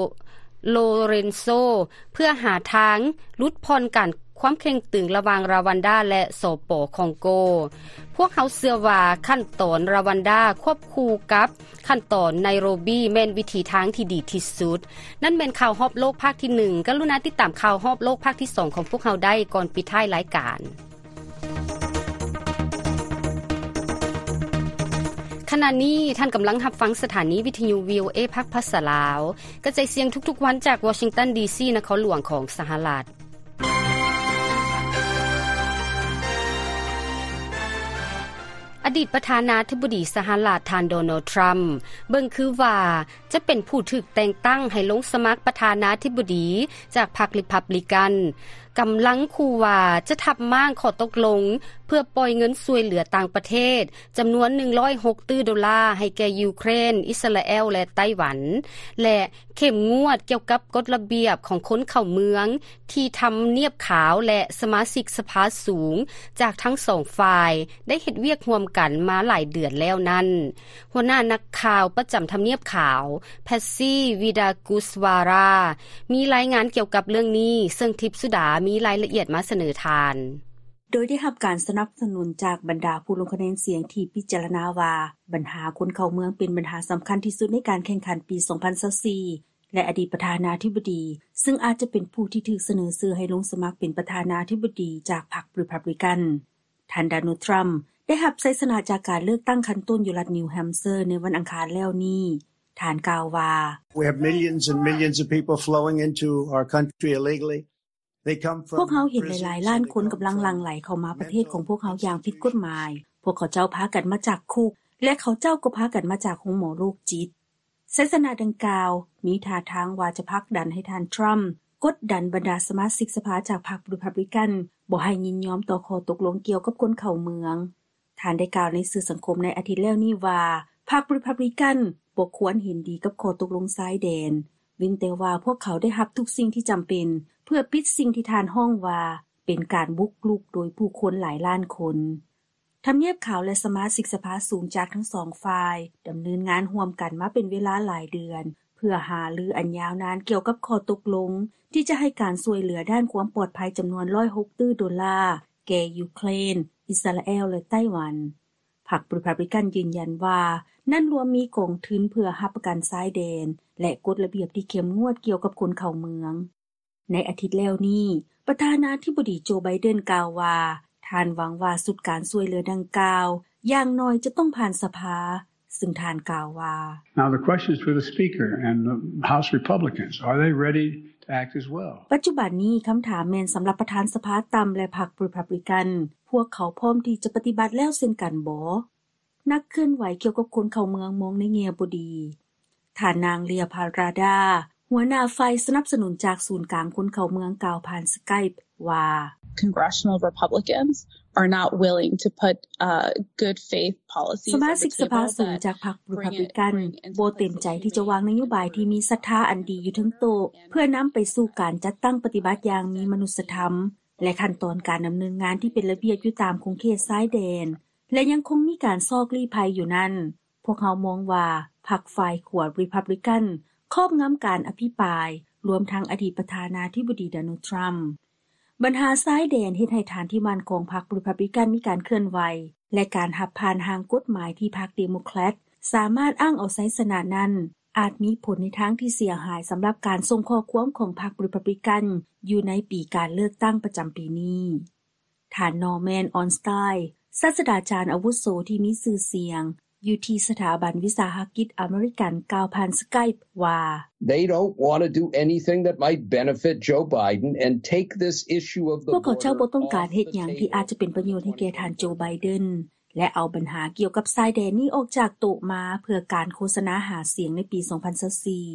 ໂລເຣນໂຊ ເພື່ອຫາທາງຫຼຸດຜ່ອນການຄວາມເຄັ່ງຕຶງລະຫວ່າງຣາວັນດາ ແລະ ສປ ຄອງໂກ. ພວກເຮົາເຊື່ອວ່າຂັ້ນຕອນຣາວັນດາຄວບຄູ່ກັບ ຂັ້ນຕອນໄນໂຣບີແມ່ນວິທີທາງທີ່ດີທີ່ສຸດ. ນັ້ນແມ່ນຂ່າວຮອບໂລກພາກທີໜຶ່ງ. ກະລຸນາຕິດຕາມຂ່າວຮອບໂລກພາກທີສອງຂອງພວກເຮົາໄດ້ກ່ອນປິດທ້າຍລາຍການ. ຂະນະນີ້ທ່ານກຳລັງຮັບຟັງສະຖານີວິທະຍຸ ວີໂອເອ ພາກພາສາລາວ ກະຈາຍສຽງທຸກໆວັນຈາກວໍຊິງຕັນ ດີຊີ ນະຄອນຫຼວງຂອງສະຫະລັດ. ອະດີດປະທານາທິບໍດີສະຫະລັດ ທ່ານ ໂດນັລ ທຣຳ ເບິ່ງຄືວ່າຈະເປັນຜູ້ຖືກແຕ່ງຕັ້ງໃຫ້ລົງສະໝັກປະທານາທິບໍດີຈາກພັກຣີພັບລິກັນ, ກຳລັງຂູ່ວ່າຈະທັບມ້າງຂໍ້ຕົກລົງເພື່ອປ່ອຍເງິນຊ່ວຍເຫຼືອຕ່າງປະເທດຈຳນວນໜຶ່ງຮ້ອຍຫົກຕື້ໂດລາໃຫ້ແກ່ຢູເຄຣນ, ອິດສະຣາແອລ ແລະ ໄຕ້ຫວັນ ແລະ ເຂັ້ມງວດກ່ຽວກັບກົດລະບຽບຂອງຄົນເຂົ້າເມືອງ ທີ່ທຳນຽບຂາວ ແລະ ສະມາຊິກສະພາສູງຈາກທັງສອງຝ່າຍໄດ້ເຮັດວຽກຮ່ວມກັນມາຫຼາຍເດືອນແລ້ວນັ້ນ. ຫົວໜ້ານັກຂ່າວປະຈຳທຳນຽບຂາວ ແພັດຊີ ວີດາກຸສວາຣາ ມີລາຍງານກ່ຽວກັບເລື່ອງນີ້, ເຊິ່ງທິບສຸດາມີລາຍລະອຽດມາສະເໜີທ່ານ. ໂດຍໄດ້ຮັບການສະໜັບສະໜູນຈາກບັນດາຜູ້ລົງຄະແນນສຽງທີ່ພິຈາລະນາວ່າ ບັນຫາຄົນເຂົ້າເມືອງເປັນບັນຫາສຳຄັນທີ່ສຸດໃນການແຂ່ງຂັນປີສອງພັນຊາວສີ່ ແລະ ອະດີດປະທານາທິບໍດີ ເຊິ່ງອາດຈະເປັນຜູ້ທີ່ຖືກສະເໜີຊື່ໃຫ້ລົງສະໝັກເປັນປະທານາທິບໍດີຈາກພັກຣີພັບລິກັນ. ທ່ານ ໂດນັລ ທຣຳ ໄດ້ຮັບໄຊຊະນະຈາກການເລືອກຕັ້ງຂັ້ນຕົ້ນຢູ່ລັດນິວແຮມເຊີໃນວັນອັງຄານແລ້ວນີ້. ທ່ານກ່າວວ່າ We have millions and millions of people flowing into our country illegally. ພວກເຮົາເຫັນຫຼາຍໆລ້ານຄົນກຳລັງຫຼັ່ງໄຫຼເຂົ້າມາປະເທດຂອງພວກເຮົາຢ່າງຜິດກົດໝາຍ. ພວກເຂົາເຈົ້າພາກັນມາຈາກຄຸກ ແລະ ເຂົາເຈົ້າກໍພາກັນມາຈາກໂຮງໝໍໂລກຈິດ. ໄຊຊະນະດັ່ງກ່າວມີທ່າທາງວ່າຈະຜັກດັນໃຫ້ທ່ານ ທຣຳ ກົດດັນບັນດາສະມາຊິກສະພາຈາກພັກຣີພັບລິກັນບໍ່ໃຫ້ຍິນຍອມຕໍ່ຂໍ້ຕົກລົງກ່ຽວກັບຄົນເຂົ້າເມືອງ. ທ່ານໄດ້ກ່າວໃນສື່ສັງຄົມໃນອາທິດແລ້ວນີ້ວ່າ ພັກຣີພັບລິກັນບໍ່ຄວນເຫັນດີກັບຂໍ້ຕົກລົງຊາຍແດນ, ເວັ້ນແຕ່ວ່າພວກເຂົາໄດ້ຮັບທຸກສິ່ງທີ່ຈຳເປັນເພື່ອປິດສິ່ງທີ່ທ່ານຮ້ອງວ່າເປັນການບຸກລຸກໂດຍຜູ້ຄົນຫຼາຍລ້ານຄົນ. ທຳນຽບຂາວ ແລະ ສະມາຊິກສະພາສູງຈາກທັງສອງຝ່າຍດຳເນີນງານຮ່ວມກັນມາເປັນເວລາຫຼາຍເດືອນ ເພື່ອຫາລືອັນຍາວນານກ່ຽວກັບຂໍ້ຕົກລົງທີ່ຈະໃຫ້ການຊ່ວຍເຫຼືອດ້ານຄວາມປອດໄພຈຳນວນຮ້ອຍຫົກຕື້ໂດລາ ແກ່ຢູເຄຣນ, ອິດສະຣາແອລ ແລະ ໄຕ້ຫວັນ. ພັກຣີພັບລິກັນຢືນຢັນວ່າ ນັ້ນລວມມີກອງທຶນເພື່ອຮັບປະກັນຊາຍແດນ ແລະ ກົດລະບຽບທີ່ເຂັ້ມງວດກ່ຽວກັບຄົນເຂົ້າເມືອງ. ໃນອາທິດແລ້ວນີ້, ປະທານາທິບໍດີ ໂຈ ໄບເດັນ ກ່າວວ່າ ທ່ານຫວັງວ່າຊຸດການຊ່ວຍເຫຼືອດັ່ງກ່າວ ຢ່າງໜ້ອຍຈະຕ້ອງຜ່ານສະພາ, ເຊິ່ງທ່ານກ່າວວ່າ Now the question is for the Speaker and the House Republicans. Are they ready to act as well? ປັດຈຸບັນນີ້ຄຳຖາມແມ່ນສຳລັບປະທານສະພາຕ່ຳ ແລະ ພັກຣີພັບລິກັນ, ພວກເຂົາພ້ອມທີ່ຈະປະຕິບັດແລ້ວເຊັ່ນກັນບໍ? ນັກເຄື່ອນໄຫວກ່ຽວກັບຄົນເຂົ້າເມືອງມອງໃນແງ່ບໍ່ດີ. ທ່ານນາງ ເລຍ ພາຣາດາ ຫົວໜ້າຝ່າຍສະໜັບສະໜູນຈາກສູນກາງຄົນເຂົ້າເມືອງ ກ່າວຜ່ານ Skype ວ່າ Congressional Republicans are not willing to put, uh, good faith policies on the table that bring it, bring it into the ສະມາຊິກສະພາສູງຈາກພັກຣີພັບລິກັນບໍ່ເຕັມໃຈທີ່ຈະວາງນະໂຍບາຍທີ່ມີສັດທາອັນດີຢູ່ເທິງໂຕະ ເພື່ອນຳໄປສູ່ການຈັດຕັ້ງປະຕິບັດຢ່າງມີມະນຸດສະທຳ ແລະ ຂັ້ນຕອນການດຳເນີນງານທີ່ເປັນລະບຽບຢູ່ຕາມຂົງເຂດຊາຍແດນ ແລະ ຍັງຄົງມີການຊອກລີ້ໄພຢູ່ນັ້ນ. ພວກເຮົາມອງວ່າພັກຝ່າຍຂວາຣີພັບລິກັນຄອບງຳການອະພິປາຍ, ລວມທັງອະດີດປະທານາທິບໍດີ ໂດນັລ ທຣຳ. ບັນຫາຊາຍແດນເຮັດໃຫ້ຖານທີ່ໝັ້ນຂອງພັກຣີພັບລິກັນມີການເຄື່ອນໄຫວ ແລະ ການຮັບຜ່ານຮ່າງກົດໝາຍທີ່ພັກເດໂມແຄຣດສາມາດອ້າງເອົາໄຊຊະນະນັ້ນ ອາດມີຜົນໃນທາງທີ່ເສຍຫາຍສຳລັບການສົ່ງຂໍ້ຄວາມຂອງພັກຣີພັບລິກັນຢູ່ໃນປີການເລືອກຕັ້ງປະຈຳປີນີ້. ທ່ານ ນໍແມນ ອອນສະຕາຍ ສາດສະດາຈານອາວຸໂສທີ່ມີຊື່ສຽງ ຢູ່ທີ່ສະຖາບັນວິສາຫະກິດອາເມລິກັນ ກ່າວຜ່ານ Skype ວ່າ: "They don't want to do anything that might benefit Joe Biden and take this issue of the ພວກເຂົາເຈົ້າບໍ່ຕ້ອງການເຮັດຫຍັງທີ່ອາດຈະເປັນປະໂຫຍດໃຫ້ແກ່ທ່ານໂຈ ໄບເດັນ ແລະ ເອົາບັນຫາກ່ຽວກັບຊາຍແດນນີ້ອອກຈາກໂຕະມາ ເພື່ອການໂຄສະນາຫາສຽງໃນປີສອງພັນຊາວສີ່."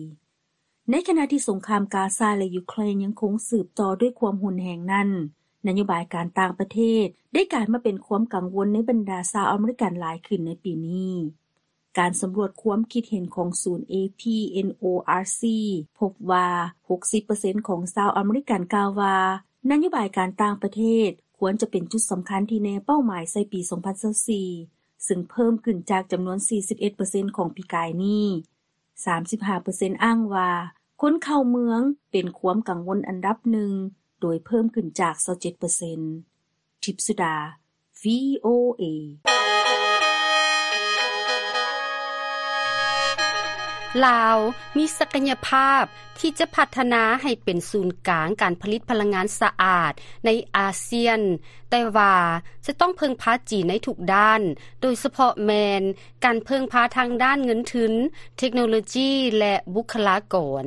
ໃນຂະນະທີ່ສົງຄາມກາຊາ ແລະ ຢູເຄຣນຍັງຄົງສືບຕໍ່ດ້ວຍຄວາມຮຸນແຮງນັ້ນ, ນະໂຍບາຍການຕ່າງປະເທດໄດ້ກາຍມາເປັນຄວາມກັງວົນໃນບັນດາຊາວອາເມລິກັນຫຼາຍຂຶ້ນໃນປີນີ້. ການສຳຫຼວດຄວາມຄິດເຫັນຂອງສູນ ເອພີ ເອັນ ໂອ ອາ ຊີ ພົບວ່າ ຫົກສິບເປີເຊັນຂອງຊາວອາເມລິກັນກ່າວວ່າ ນະໂຍບາຍການຕ່າງປະເທດຄວນຈະເປັນຈຸດສຳຄັນທີ່ແນເປົ້າໝາຍໃສ່ປີສອງພັນຊາວສີ່ ຊຶ່ງເພີ່ມຂຶ້ນຈາກຈຳນວນ ສີ່ສິບເອັດເປີເຊັນຂອງປີກາຍນີ້. ສາມສິບຫ້າເປີເຊັນອ້າງວ່າ ຄົນເຂົ້າເມືອງເປັນຄວາມກັງວົນອັນດັບໜຶ່ງ ໂດຍເພີ່ມຂຶ້ນຈາກ ຊາວເຈັດເປີເຊັນ. ທິບສຸດາ ວີໂອເອ. ລາວມີສັກກະຍະພາບທີ່ຈະພັດທະນາໃຫ້ເປັນສູນກາງການຜະລິດພະລັງງານສະອາດໃນອາຊຽນ, ແຕ່ວ່າຈະຕ້ອງເພິ່ງພາຈີນໃນທຸກດ້ານ, ໂດຍສະເພາະແມ່ນ ການເພິ່ງພາທາງດ້ານເງິນທຶນ, ເທັກໂນໂລຈີ ແລະ ບຸກຄະລາກອນ.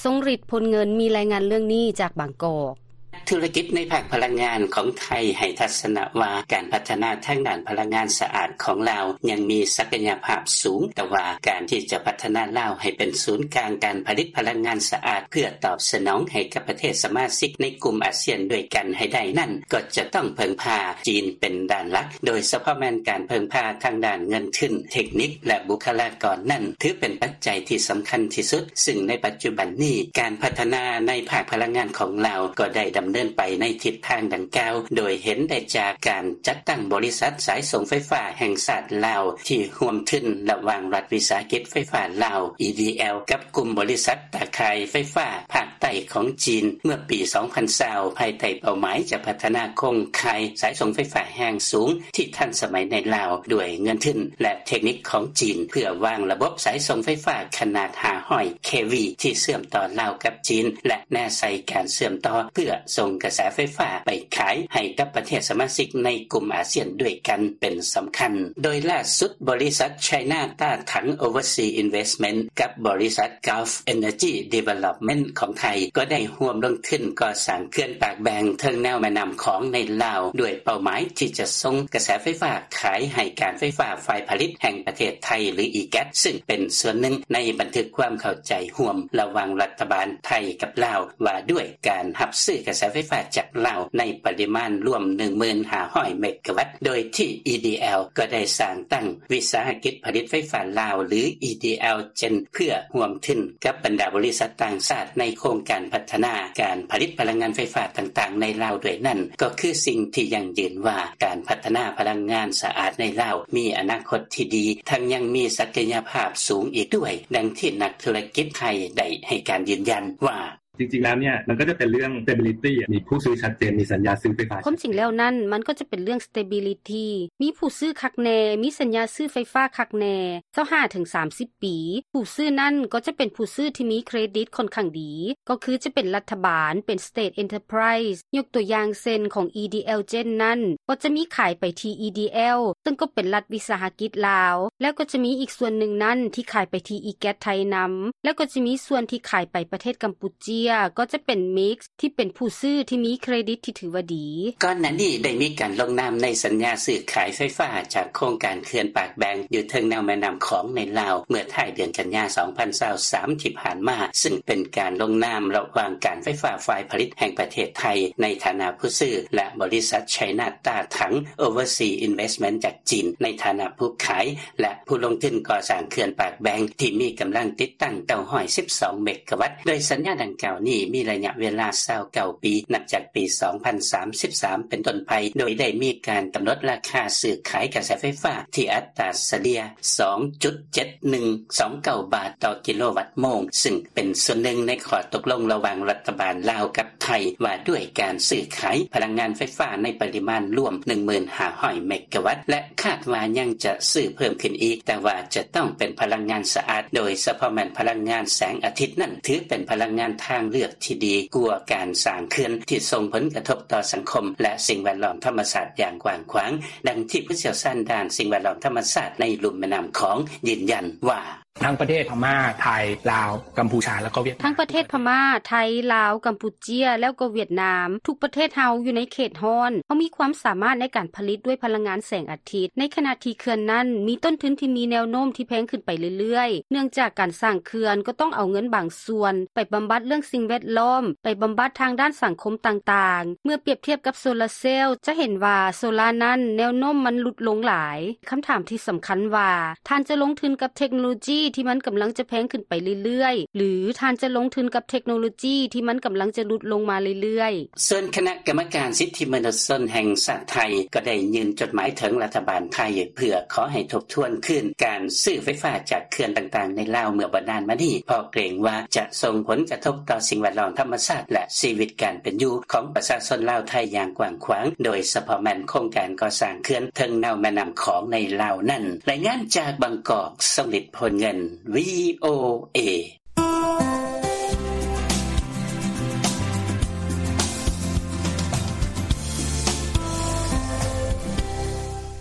ຊົງລິດ ພົນເງິນ ມີລາຍງານເລື່ອງນີ້ຈາກບາງກອກ. ນັກທຸລະກິດໃນພາກພະລັງງານຂອງໄທໃຫ້ທັດສະນະວ່າ ການພັດທະນາທາງດ້ານພະລັງງານສະອາດຂອງລາວຍັງມີສັກກະຍະພາບສູງ, ແຕ່ວ່າການທີ່ຈະພັດທະນາລາວໃຫ້ເປັນສູນກາງການຜະລິດພະລັງງານສະອາດ ເພື່ອຕອບສະໜອງໃຫ້ກັບປະເທດສະມາຊິກໃນກຸ່ມອາຊຽນດ້ວຍກັນໃຫ້ໄດ້ນັ້ນ ກໍຈະຕ້ອງເພິ່ງພາຈີນເປັນດ້ານຫຼັກ. ໂດຍສະເພາະແມ່ນການເພິ່ງພາທາງດ້ານເງິນທຶນ, ເທັກນິກ ແລະ ບຸກຄະລາກອນນັ້ນ ຖືເປັນປັດໄຈທີ່ສຳຄັນທີ່ສຸດ, ຊຶ່ງໃນປັດຈຸບັນນີ້ ການພັດທະນາໃນພາກພະລັງງານຂອງລາວກໍໄດ້ດຳເນີນໄປໃນທິດທາງດັ່ງກ່າວ, ໂດຍເຫັນໄດ້ຈາກການຈັດຕັ້ງບໍລິສັດສາຍສົ່ງໄຟຟ້າແຫ່ງຊາດລາວ ທີ່ຮ່ວມທຶນລະຫວ່າງລັດວິສາຫະກິດໄຟຟ້າລາວ ອີດີແອລ ກັບກຸ່ມບໍລິສັດຕາຂ່າຍໄຟຟ້າພາກໃຕ້ຂອງຈີນ ເມື່ອປີສອງພັນຊາວ ພາຍໃຕ້ເປົ້າໝາຍຈະພັດທະນາໂຄງຂ່າຍສາຍສົ່ງໄຟຟ້າແຮງສູງທີ່ທັນສະໄໝໃນລາວ ດ້ວຍເງິນທຶນ ແລະ ເທັກນິກຂອງຈີນ ເພື່ອວາງລະບົບສາຍສົ່ງໄຟຟ້າຂະໜາດຫ້າຮ້ອຍເຄວີ ທີ່ເຊື່ອມຕໍ່ລາວກັບຈີນ ແລະ ແນໃສ່ການເຊື່ອມຕໍ່ເພື່ອສົ່ງກະແສໄຟຟ້າໄປຂາຍໃຫ້ກັບປະເທດສະມາຊິກໃນກຸ່ມອາຊຽນດ້ວຍກັນເປັນສຳຄັນ. ໂດຍລ່າສຸດ ບໍລິສັດ China Tatang Overseas Investment ກັບບໍລິສັດ Gulf Energy Development ຂອງໄທ ກໍໄດ້ຮ່ວມລົງທຶນກໍ່ສ້າງເຂື່ອນປາກແບງເທິງແນວແມ່ນ້ຳຂອງໃນລາວ ດ້ວຍເປົ້າໝາຍທີ່ຈະສົ່ງກະແສໄຟຟ້າຂາຍໃຫ້ການໄຟຟ້າຝ່າຍຜະລິດແຫ່ງປະເທດໄທ ຫຼື ອີແກັດ ຊຶ່ງເປັນສ່ວນໜຶ່ງໃນບັນທຶກຄວາມເຂົ້າໃຈຮ່ວມລະຫວ່າງລັດຖະບານໄທກັບລາວ ວ່າດ້ວຍການຮັບຊື້ກະແສໄຟຟ້າຈາກລາວໃນປະລິມານລວມ ໜຶ່ງໝື່ນຫ້າຮ້ອຍເມກາວັດ, ໂດຍທີ່ ອີດີແອລ ກໍໄດ້ສ້າງຕັ້ງວິສາຫະກິດຜະລິດໄຟຟ້າລາວ ຫຼື EDL Gen ເພື່ອຮ່ວມທຶນກັບບັນດາບໍລິສັດຕ່າງຊາດໃນໂຄງການພັດທະນາການຜະລິດພະລັງງານໄຟຟ້າຕ່າງໆໃນລາວດ້ວຍນັ້ນ ກໍຄືສິ່ງທີ່ຢັ້ງຢືນວ່າ ການພັດທະນາພະລັງງານສະອາດໃນລາວມີອະນາຄົດທີ່ດີ, ທັງຍັງມີສັກກະຍະພາບສູງອີກດ້ວຍ, ດັ່ງທີ່ນັກທຸລະກິດໄທໄດ້ໃຫ້ການຢືນຢັນວ່າ: "ຄວາມຈິງແລ້ວນັ້ນ ມັນກໍຈະເປັນເລື່ອງ stability ມີຜູ້ຊື້ຄັກແນ່ ມີສັນຍາຊື້ໄຟຟ້າຄັກແນ່ ມີຜູ້ຊື້ຄັກແນ່ ມີສັນຍາຊື້ໄຟຟ້າຄັກແນ່ ຊາວຫ້າເຖິງສາມສິບປີ. ຜູ້ຊື້ນັ້ນກໍຈະເປັນຜູ້ຊື້ທີ່ມີເຄຣດິດຂ້ອນຂ້າງດີ ກໍຄືຈະເປັນລັດຖະບານ, ເປັນ State Enterprise ຍົກຕົວຢ່າງເຊັ່ນ ຂອງ EDL Gen ນັ້ນ ກໍຈະມີຂາຍໄປທີ່ EDL ເຊິ່ງກໍເປັນລັດວິສາຫະກິດລາວ ແລ້ວກໍຈະມີອີກສ່ວນໜຶ່ງນັ້ນທີ່ຂາຍໄປທີ່ EGAT ໄທນຳ ແລ້ວກໍຈະມີສ່ວນທີ່ຂາຍໄປປະເທດກຳປູເຈຍ ກໍຈະເປັນ Mix ທີ່ເປັນຜູ້ຊື້ທີ່ມີເຄຣດິດທີ່ຖືວ່າດີ." ກ່ອນໜ້ານີ້ໄດ້ມີການລົງນາມໃນສັນຍາຊື້ຂາຍໄຟຟ້າຈາກໂຄງການເຂື່ອນປາກແບງຢູ່ເທິງແນວແມ່ນ້ຳຂອງໃນລາວ ເມື່ອທ້າຍເດືອນກັນຍາ ສອງພັນຊາວສາມ ທີ່ຜ່ານມາ, ຊຶ່ງເປັນການລົງນາມລະຫວ່າງການໄຟຟ້າຝ່າຍຜະລິດແຫ່ງປະເທດໄທ ໃນຖານະຜູ້ຊື້ ແລະ ບໍລິສັດ China Tatang Overseas Investment ຈາກຈີນ ໃນຖານະຜູ້ຂາຍ ແລະ ຜູ້ລົງທຶນກໍ່ສ້າງເຂື່ອນປາກແບງ ທີ່ມີກຳລັງຕິດຕັ້ງ ເກົ້າຮ້ອຍສິບສອງເມກາວັດ, ໂດຍສັນຍາດັ່ງກ່າວນີ້ມີໄລຍະເວລາ ຊາວເກົ້າປີ ນັບຈາກປີສອງພັນສາມສິບສາມເປັນຕົ້ນໄປ, ໂດຍໄດ້ມີການກຳນົດລາຄາຊື້ຂາຍກະແສໄຟຟ້າທີ່ອັດຕາສະເລ່ຍ ສອງຈຸດເຈັດໜຶ່ງສອງເກົ້າບາດຕໍ່ກິໂລວັດໂມງ, ຊຶ່ງເປັນສ່ວນໜຶ່ງໃນຂໍ້ຕົກລົງລະຫວ່າງລັດຖະບານລາວກັບໄທ ວ່າດ້ວຍການຊື້ຂາຍພະລັງງານໄຟຟ້າໃນປະລິມານລວມ ໜຶ່ງໝື່ນຫ້າຮ້ອຍເມກາວັດ ແລະ ຄາດວ່າຍັງຈະຊື້ເພີ່ມຂຶ້ນອີກ, ແຕ່ວ່າຈະຕ້ອງເປັນພະລັງງານສະອາດ, ໂດຍສະເພາະແມ່ນພະລັງງານແສງອາທິດນັ້ນ ຖືເປັນພະລັງງານທາງ ເລືອກທີ່ດີກວ່າການສ້າງເຂື່ອນທີ່ສົ່ງຜົນກະທົບຕໍ່ສັງຄົມ ແລະ ສິ່ງແວດລ້ອມທຳມະຊາດຢ່າງກວ້າງຂວາງ, ດັ່ງທີ່ຜູ້ຊ່ຽວຊານດ້ານສິ່ງແວດລ້ອມທຳມະຊາດໃນລຸ່ມແມ່ນ້ຳຂອງຢືນຢັນວ່າ: ທັງປະເທດພະມ້າ ໄທ ລາວ ກຳພູຊາ ແລ້ວກໍຫວຽດນາມ ທັງປະເທດພະມ້າ ໄທ ລາວ ກຳປູເຈຍ ແລ້ວກໍຫວຽດນາມ ທຸກປະເທດເຮົາຢູ່ໃນເຂດຮ້ອນ ເຮົາມີຄວາມສາມາດໃນການຜະລິດດ້ວຍພະລັງງານແສງອາທິດ ໃນຂະນະທີ່ເຂື່ອນນັ້ນມີຕົ້ນທຶນທີ່ມີແນວໂນ້ມທີ່ແພງຂຶ້ນໄປເລື້ອຍໆ ເນື່ອງຈາກການສ້າງເຂື່ອນກໍຕ້ອງເອົາເງິນບາງສ່ວນໄປບຳບັດເລື່ອງສິ່ງແວດລ້ອມ ໄປບຳບັດທາງດ້ານສັງຄົມຕ່າງໆ. ເມື່ອປຽບທຽບກັບໂຊລາເຊວ ຈະເຫັນວ່າໂຊລານັ້ນແນວໂນ້ມມັນຫຼຸດລົງຫຼາຍ. ຄຳຖາມທີ່ສຳຄັນວ່າ ທ່ານຈະລົງທຶນກັບເທັກໂນໂລຈີທີ່ມັນກຳລັງຈະແພງຂຶ້ນໄປເລື້ອຍໆ ຫຼື ທ່ານຈະລົງທຶນກັບເທັກໂນໂລຈີທີ່ມັນກຳລັງຈະຫຼຸດລົງມາເລື້ອຍໆ? ສ່ວນຄະນະກຳມະການສິດທິມະນຸດຊົນແຫ່ງຊາດໄທ ກໍໄດ້ຍື່ນຈົດໝາຍເຖິງລັດຖະບານໄທ ເພື່ອຂໍໃຫ້ທົບທວນຄືນການຊື້ໄຟຟ້າຈາກເຂື່ອນຕ່າງໆໃນລາວເມື່ອບໍ່ນານມານີ້ ເພາະເກງວ່າຈະສົ່ງຜົນກະທົບຕໍ່ສິ່ງແວດລ້ອມທຳມະຊາດ ແລະ ຊີວິດການເປັນຢູ່ຂອງປະຊາຊົນລາວໄທຢ່າງກວ້າງຂວາງ, ໂດຍສະເພາະແມ່ນໂຄງການກໍ່ສ້າງເຂື່ອນເທິງແນວແມ່ນ້ຳຂອງໃນລາວນັ້ນ. ລາຍງານຈາກບາງກອກ, ຊົງລິດ ໂພນເງິນ ວີໂອເອ.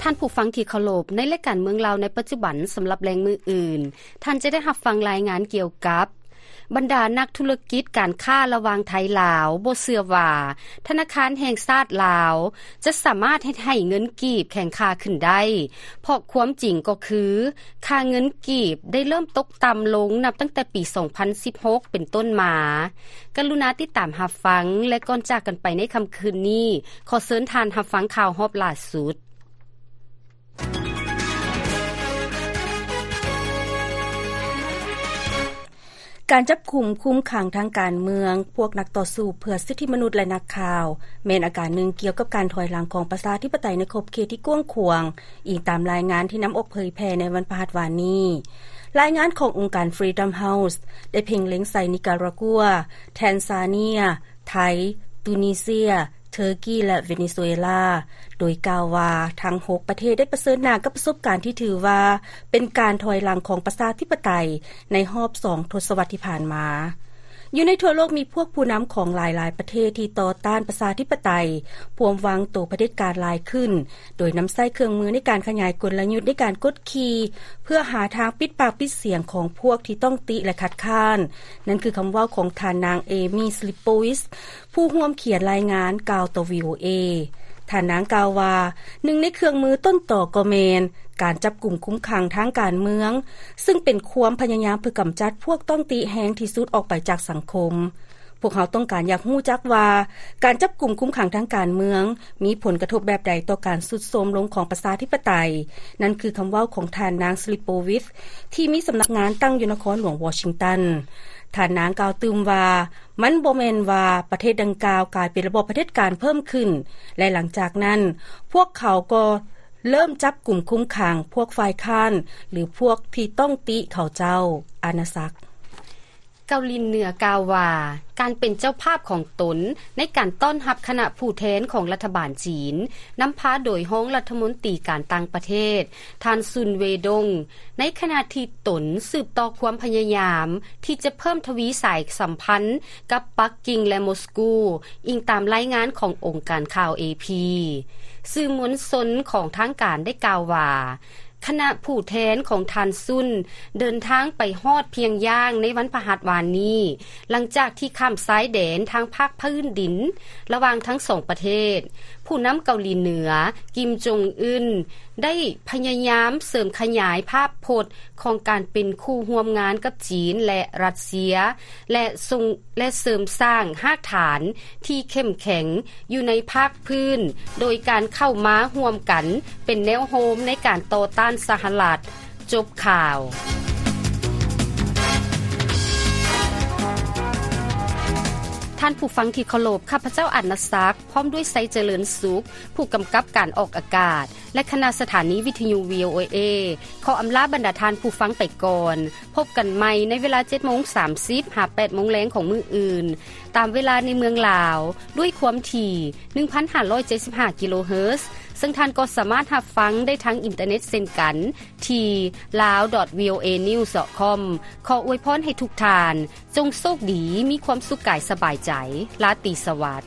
ທ່ານຜູ້ຟັງທີ່ເຄົາລົບ, ໃນລາຍການເມືອງລາວໃນປັດຈຸບັນ ສຳລັບແລງມື້ອື່ນ, ທ່ານຈະໄດ້ຮັບຟັງລາຍງານກ່ຽວກັບ ບັນດານັກທຸລະກິດການຄ້າລະຫວ່າງໄທລາວບໍ່ເຊື່ອວ່າ ທະນາຄານແຫ່ງຊາດລາວຈະສາມາດເຮັດໃຫ້ເງິນກີບແຂງຄ່າຂຶ້ນໄດ້, ເພາະຄວາມຈິງກໍຄື ຄ່າເງິນກີບໄດ້ເລີ່ມຕົກຕ່ຳລົງນັບຕັ້ງແຕ່ປີສອງພັນສິບຫົກເປັນຕົ້ນມາ. ກະລຸນາຕິດຕາມຮັບຟັງ ແລະ ກ່ອນຈາກກັນໄປໃນຄ່ຳຄືນນີ້, ຂໍເຊີນທ່ານຮັບຟັງຂ່າວຮອບລ່າສຸດ. ການຈັບກຸມຄຸມຂັງທາງການເມືອງ, ພວກນັກຕໍ່ສູ້ເພື່ອສິດທິມະນຸດ ແລະ ນັກຂ່າວ ແມ່ນອາການໜຶ່ງກ່ຽວກັບການຖອຍຫຼັງຂອງປະຊາທິປະໄຕໃນຂອບເຂດທີ່ກວ້າງຂວາງ, ອີງຕາມລາຍງານທີ່ນຳອອກເຜີຍແຜ່ໃນວັນພະຫັດວານນີ້. ລາຍງານຂອງອົງການ Freedom House ໄດ້ເພັ່ງເລັງໃສ່ນິກາຣາກົວ, ແທນຊາເນຍ, ໄທ, ຕູນີເຊຍ, ເທີກີ ແລະ ເວເນຊູເອລາ, ໂດຍກ່າວວ່າທັງຫົກປະເທດໄດ້ປະເຊີນໜ້າກັບປະສົບການທີ່ຖືວ່າເປັນການຖອຍຫຼັງຂອງປະຊາທິປະໄຕໃນຮອບສອງທົດສະວັດທີ່ຜ່ານມາ. ຢູ່ໃນທົ່ວໂລກມີພວກຜູ້ນຳຂອງຫຼາຍໆປະເທດທີ່ຕໍ່ຕ້ານປະຊາທິປະໄຕ, ພວມວາງໂຕຜະເດັດການຫຼາຍຂຶ້ນ, ໂດຍນຳໃຊ້ເຄື່ອງມືໃນການຂະຫຍາຍກົນລະຍຸດໃນການກົດຂີ່ ເພື່ອຫາທາງປິດປາກປິດສຽງຂອງພວກທີ່ຕ້ອງຕິ ແລະ ຄັດຄ້ານ. ນັ້ນຄືຄຳເວົ້າຂອງທ່ານນາງ ເອມີ ສລິບໂປວິດ ຜູ້ຮ່ວມຂຽນລາຍງານກ່າວຕໍ່ ວີໂອເອ. ທ່ານນາງກ່າວວ່າ, ໜຶ່ງໃນເຄື່ອງມືຕົ້ນຕໍກໍແມ່ນການຈັບກຸມຄຸມຂັງທາງການເມືອງ, ຊຶ່ງເປັນຄວາມພະຍາຍາມເພື່ອກຳຈັດພວກຕ້ອງຕິແຮງທີ່ສຸດອອກໄປຈາກສັງຄົມ. ພວກເຮົາຕ້ອງການຢາກຮູ້ຈັກວ່າ ການຈັບກຸມຄຸມຂັງທາງການເມືອງມີຜົນກະທົບແບບໃດຕໍ່ການຊຸດໂຊມລົງຂອງປະຊາທິປະໄຕ. ນັ້ນຄືຄຳເວົ້າຂອງທ່ານນາງ ສລິບໂປວິດ ທີ່ມີສຳນັກງານຕັ້ງຢູ່ນະຄອນຫຼວງວໍຊິງຕັນ. ທ່ານນາງກ່າວຕື່ມວ່າ, ມັນບໍ່ແມ່ນວ່າປະເທດດັ່ງກ່າວກາຍເປັນລະບອບຜະເດັດການເພີ່ມຂຶ້ນ ແລະ ຫຼັງຈາກນັ້ນ, ພວກເຂົາກໍເລີ່ມຈັບກຸມຄຸມຂັງພວກຝ່າຍຄ້ານ ຫຼື ພວກທີ່ຕ້ອງຕິເຂົາເຈົ້າ. ອານາສັກ. ເກົາຫຼີເໜືອກ່າວວ່າ ການເປັນເຈົ້າພາບຂອງຕົນໃນການຕ້ອນຮັບຄະນະຜູ້ແທນຂອງລັດຖະບານຈີນ, ນຳພາໂດຍຮອງລັດຖະມົນຕີການຕ່າງປະເທດ ທ່ານ ຊຸນ ເວດົງ, ໃນຂະນະທີ່ຕົນສືບຕໍ່ຄວາມພະຍາຍາມທີ່ຈະເພີ່ມທະວີສາຍສຳພັນກັບປັກກິ່ງ ແລະ ມົສກູ, ອີງຕາມລາຍງານຂອງອົງການຂ່າວ ເອພີ. ສື່ມວນຊົນຂອງທາງການໄດ້ກ່າວວ່າ ຄະນະຜູ້ແທນຂອງທ່ານ ຊຸນ ເດີນທາງໄປຮອດພຽງຢ່າງໃນວັນພະຫັດວານນີ້, ຫຼັງຈາກທີ່ຂ້າມຊາຍແດນທາງພາກພື້ນດິນລະຫວ່າງທັງສອງປະເທດ. ຜູ້ນຳເກົາຫຼີເໜືອ ກິມ ຈົງອຶນ ໄດ້ພະຍາຍາມເສີມຂະຫຍາຍພາບພົດຂອງການເປັນຄູ່ຮ່ວມງານກັບຈີນ ແລະ ຣັດເຊຍ ແລະ ສົ່ງ ແລະ ເສີມສ້າງຮາກຖານທີ່ເຂັ້ມແຂງຢູ່ໃນພາກພື້ນ ໂດຍການເຂົ້າມາຮ່ວມກັນເປັນແນວໂຮມໃນການຕໍ່ຕ້ານສະຫະລັດ. ຈົບຂ່າວ. ທ່ານຜູ້ຟັງທີ່ເຄົາລົບ, ຂ້າພະເຈົ້າ ອານາສັກ ພ້ອມດ້ວຍ ໄຊຈະເລີນສຸກ ຜູ້ກຳກັບການອອກອາກາດ ແລະ ຄະນະສະຖານີວິທະຍຸ ວີໂອເອ ຂໍອຳລາບັນດາທ່ານຜູ້ຟັງໄປກ່ອນ. ພົບກັນໃໝ່ໃນເວລາເຈັດໂມງສາມສິບ ຫາ ແປດໂມງແລງຂອງມື້ອື່ນ ຕາມເວລາໃນເມືອງລາວ ດ້ວຍຄວາມຖີ່ ໜຶ່ງພັນຫ້າຮ້ອຍເຈັດສິບຫ້າ ກິໂລເຮີດ, ເຊິ່ງທ່ານກໍສາມາດຮັບຟັງໄດ້ທາງອິນເຕີເນັດເຊັ່ນກັນ ທີ່ lawdotvoanews.com. ຂໍອວຍພອນໃຫ້ທຸກທ່ານ ຈົ່ງໂຊກດີ, ມີຄວາມສຸກກາຍສະບາຍໃຈ. ລາຕີສະຫວັດ.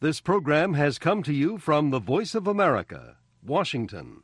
This program has come to you from the Voice of America, Washington.